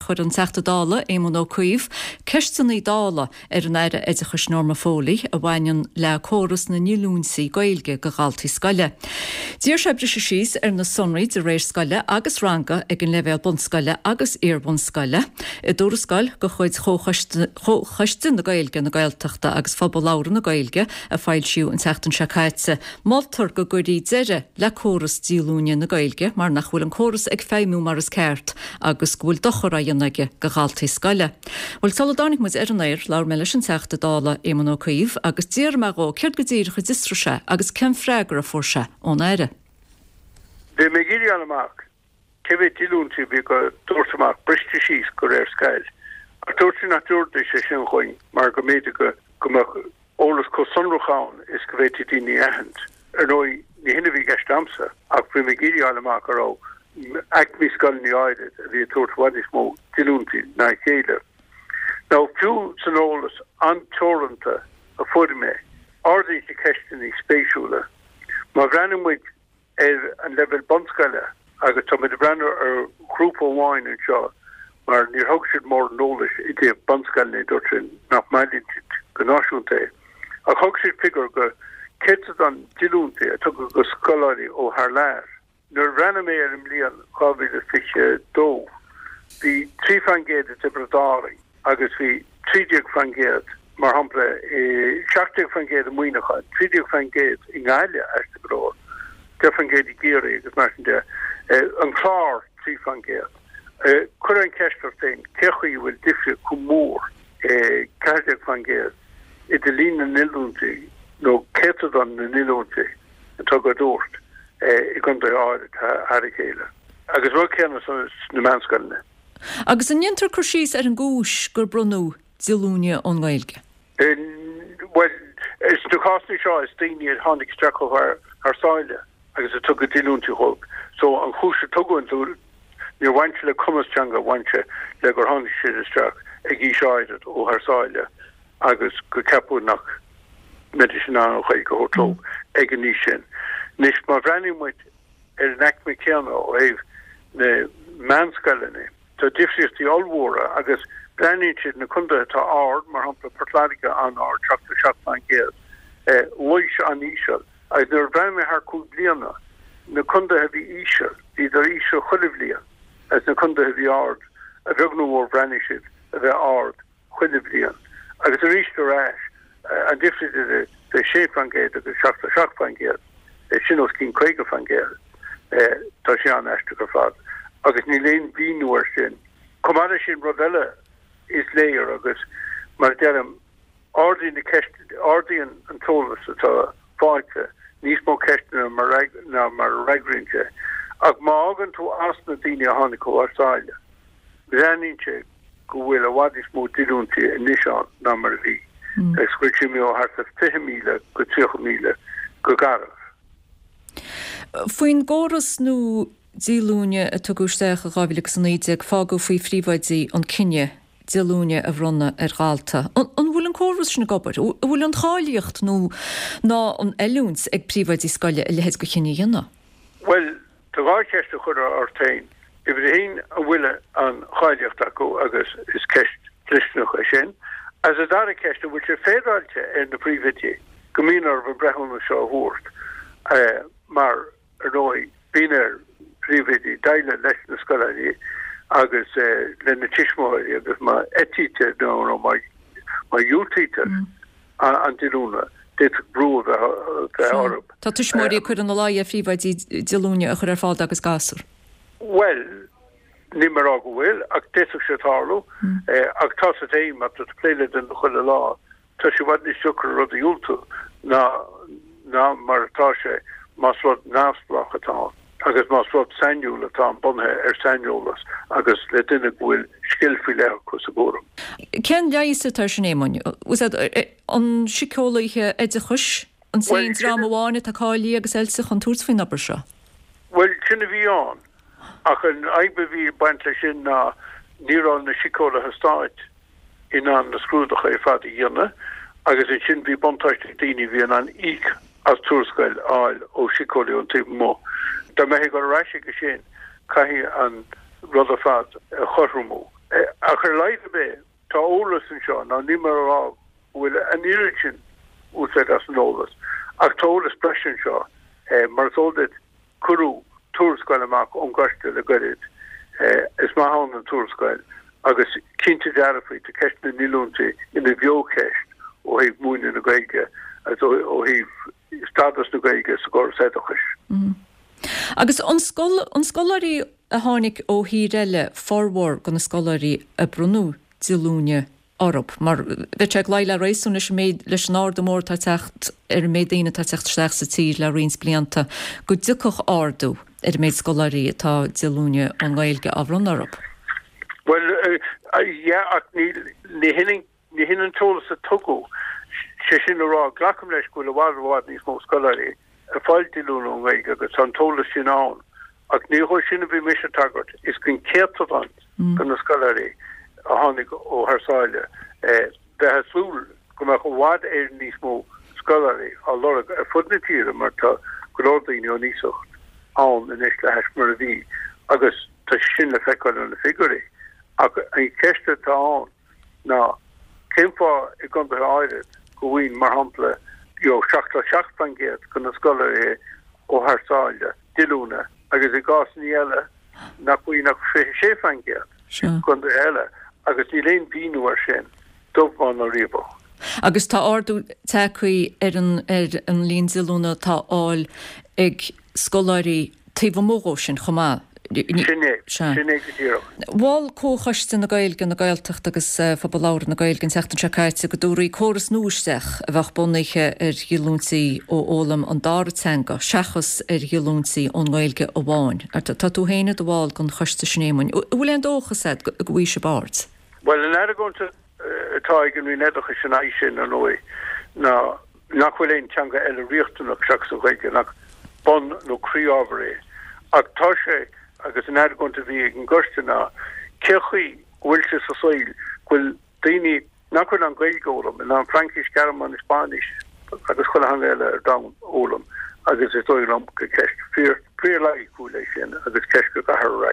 chuir an Teachta Dála, Éamon Ó Cuív, ceisteanna Dála ar an Aire Oideachais Norma Foley a bhaineann le córas na ndíolúintí Gaeilge do dhaltaí scoile. D'iarr sé briseadh síos ar na sonraí de réir scoile agus ranga ag an leibhéal bunscoile agus iar-bhunscoile. I dtuarascáil de chuid Chomhchoiste na Gaeilge, na Gaeltachta agus Phobal Labhartha na Gaeilge a foilsíodh an tseachtain seo caite, Moltar go gcuirfí deireadh le córas díolúine na Gaeilge mar nach bhfuil an córas ag feidhmiú mar is ceart agus go bhfuil dochar á dhéanamh aige do dhaltaí scoile. Bhuel, sula dtáinig muid ar an aer, labhair mé leis an Teachta Dála Éamon Ó Cuív agus d'fhiafraigh mé dhó céard go díreach a d'fhiosraigh sé agus cén freagra a fuair sé ón Aire. Bhí mé ag iarraidh a fháil amach cé mhéad díolúintí a bhí á dtabhairt amach briste síos de réir scoil. Ach dúirt sí nach dtabharfaidís é sin dhúinn mar go mb'fhéidir go go mbeadh eolas chomh sonrach ann is go bhféadfaí daoine a aithint. Ar ndóigh, ní hin a bhí i gceist a'msa, ach bhí mé ag iarraidh a fháil amach an raibh aicmí scoileanna áirid a bhí ag tabhairt i bhfad níos mó díolúintí ná a chéile. Now, fiú san eolas an-teoranta a fuair mé, ardaíonn sé ceisteanna spéisiúla. Má bhreathnaíonn muid ar an leibhéal bunscoile agus tá muid ag breathnú ar ghrúpa amháin anseo mar níor thug siad mórán eolais i dtaobh bunscoileanna, dúirt siad nach mbailíonn siad go náisiúnta é. Ach thug siad figiúr go céatadán díolúintí a tugadh do scoláirí ó thar lear. Nuair a bhreathnaigh mé ar an mbliain 2022, bhí 3% i dTiobraid Árann, agus bhí 13%, mar shampla, i 17% i Muineachán, 13% i nGaillimh, aisteach go leor, 10% i gCiarraí agus mar sin de. An Clár, 3%. Cuir an cheist ort féin, cé chaoi a bhfuil difríocht chomh mór, 14%, idir líon na ndíolúintí nó céatadán na ndíolúintí atá á dtabhairt i gcontaetha áirid thar a chéile? Agus rud céanna sna meánscoileanna. Agus an ndéantar cur síos ar an gcúis gur bronnadh díolúine ón nGaeilge? Bhuel, sna cásanna seo is daoine a tháinig isteach ó thar sáile agus a tugadh díolúintí dhóibh. So an chúis a tugadh an níor bhain sé le cumas teanga, bhain sé le gur tháinig siad isteach ag aois áirid ó thar sáile agus go ceapadh nach mbeidís in ann an Ghaeilge a thabhairt leo ag an aois sin. Anois má bhreathnaíonn muid ar an aicme céanna ó thaobh na meánscoileanna. Tá difríochtaí ollmhóra agus breathnaíonn siad na contaetha atá ard, mar shampla Port Láirge an-ard, 77%, Laois an-íseal agus nuair a bhreathnaigh mé thar 5 bliana, na contaetha a bhí íseal, bhíodar íseal chuile bhliain agus na contaetha a bhí ard, a bheag nó a mhór bhreathnaigh siad a bheith ard. chuile bhliain. Agus arís ar ais, an difríocht idir 6% agus 77%, sin os cionn 50%. Tá sé an-aisteach ar fad. Agus níl aon mhíniú air sin. Chomh maith leis sin, rud eile is léir agus, mar a deirim, ardaíonn na ceist, ardaíonn an t-eolas atá faighte níos mó ceisteanna ná mar a fhreagraíonn sé. Ach má fhágann tú as na daoine a tháinig ó thar sáile, breathnaíonn sé go bhfuil i bhfad níos mó díolúintí anois ann ná mar a bhí, agus go bhfuil sé imithe ó thart ar 20,000 go 30,000 go garbh. Faoin gcóras nua díolúine a tugadh isteach i 2019, fágadh faoi phríomhoidí an cinneadh díolúine a bhronnadh ar dhalta. An bhfuil an córas sin ag obair? An bhfuil an cháilíocht nó ná an oiliúint ag príomhoidí scoile a leithéid de chinneadh a dhéanamh? Bhuel, Tá dhá cheist a chur ort féin. Uimhir a haon, an bhfuil an cháilíocht acu agus is ceist dhlisteanach é sin. Agus an dara ceist, an bhfuil sé féaráilte ar na príomhoidí go mbíonn orthu an breithiúnas seo a thabhairt mar, ar ndóigh, bíonn ar phríomhoidí déileáil leis na scoláirí agus lena tuismitheoirí agus má eitítear nó má dhiúltaítear an díolúine, d'fhéadfadh brú a bheith orthu. Tá tuismitheoirí ag cur ina luí ar phríomhoidí díolúine a chur ar fáil dá gcuid gasúr. Bhuel, níl mé ag rá go bhfuil, ach d'fhéadfadh sé tarlú. Ach tá a fhios agat féin, má tá tú ag plé le duine chuile lá, tá sé i bhfad níos deacra rud a dhiúltú ná ná mar atá sé más rud neamhspleách atá ann agus más rud sainiúil atá ann bunaithe ar saineolas agus le duine go bhfuil scil faoi leith acu sa gcúram. Cén leigheas atá air sin, Éamoinn? An síceolaithe oideachais an t-aon dream amháin atá cáilithe agus oilte chun tabhairt faoin obair seo? Bhuel, sin a bhí ann. Ach an fhadhb a bhí ag baint leis sin ná ní raibh na síceolaithe stáit in ann na scrúduithe ar fad a dhéanamh agus ansin bhí buntáiste ag daoine a bhí in ann íoc as tuarascáil a fháil ó shíceolaí ón taobh amuigh. Dá mbeifí ag dul ar ais chuige sin, caithfidh an rud ar fad a chothromú. Ach ar a laghad ar bith, tá eolas anseo, now níl mé a rá go bhfuil an oiread sin úsáid as an eolas, ach tá eolas breise anseo. Mar is eol duit, cuireadh tuarascáil amach ón gcoiste le goirid. Is maith ann an tuarascáil agus cinnte dearfa tá ceist na ndíolúintí ina bheocheist ó thaobh múineadh na Gaeilge agus ó thaobh stádas na Gaeilge sa gcóras oideachais. Agus an an scoláirí a tháinig ó thír eile formhór de na scoláirí a bronnadh díolúine orthu, mar bheadh sé ag luí le réasún leis an méid, leis an ardú mór atá ag teacht ar an méid daoine atá ag teacht isteach sa tír le roinnt blianta, go dtiocfadh ardú ar an méid scoláirí atá díolúine ón nGaeilge á bhronnadh orthu. Bhuel, yeah, ach ní, ní hin, ní hin an t-eolas a tugadh. Sé sin le rá, glacaim leis go bhfuil i bhfad, i bhfad níos mó scoláirí ag fáil díolúine ón nGaeilge agus tá an t-eolas sin ann. Ach ní dhó sin a bhí mise ag tagairt, is don céatadán de na scoláirí a tháinig ó thar sáile. Bheifeá ag súil go mbeadh i bhfad Éireann níos mó scoláirí á lorg ar fud na tíre mar tá go leor daoine ón iasacht ann anois le hais mar a bhí agus tá sé sin le feiceáil ó na figiúirí. Ach an cheist atá ann ná cén fáth i gcontaetha áirid go bhfaigheann, mar shampla, you know, 77% de na scoláirí ó thar sáile díolúine agus i gcásanna eile nach bhfaigheann ach 26% i gcontaetha eile agus níl aon mhíniú air sin, dubh bán ná riabhach. Agus tá ardú tagtha ar an ar an líon díolúine atá á fháil ag scoláirí taobh amuigh dhó sin chomh maith. Sin é. Sin é go díreach. Mhol Comhchoiste na Gaeilge, na Gaeltachta agus Phobal Labhartha na Gaeilge an tseachtain seo caite go dtabharfaí córas nua isteach a bheadh bunaithe ar dhíolúintí ó fhoghlaim an dara teanga seachas ar dhíolúintí ón nGaeilge amháin. Tá tú féin i do bhall den choiste sin, Éamoinn. An bhfuil aon dóchas agat go bhfaighidh sibh aird? Bhuel, an argóint atá ag an Roinn Oideachais ina aghaidh sin, ar ndóigh, ná nach bhfuil aon teanga eile riachtanach seachas an Ghaeilge, nach bun nó croí-ábhar é. Ach tá sé, agus an argóint a bhí ag an gcoiste ná, cé chaoi go bhfuil sé sa saol go bhfuil daoine nach bhfuil in ann Gaeilge a fhoghlaim, in ann Fraincis, Gearmáinis, Spáinnis agus chuile theanga eile ar domhan a fhoghlaim agus is dóigh liom gur ceist fíor, fíor loighiciúil é sin agus ceist go gcaithfear a fhreagairt.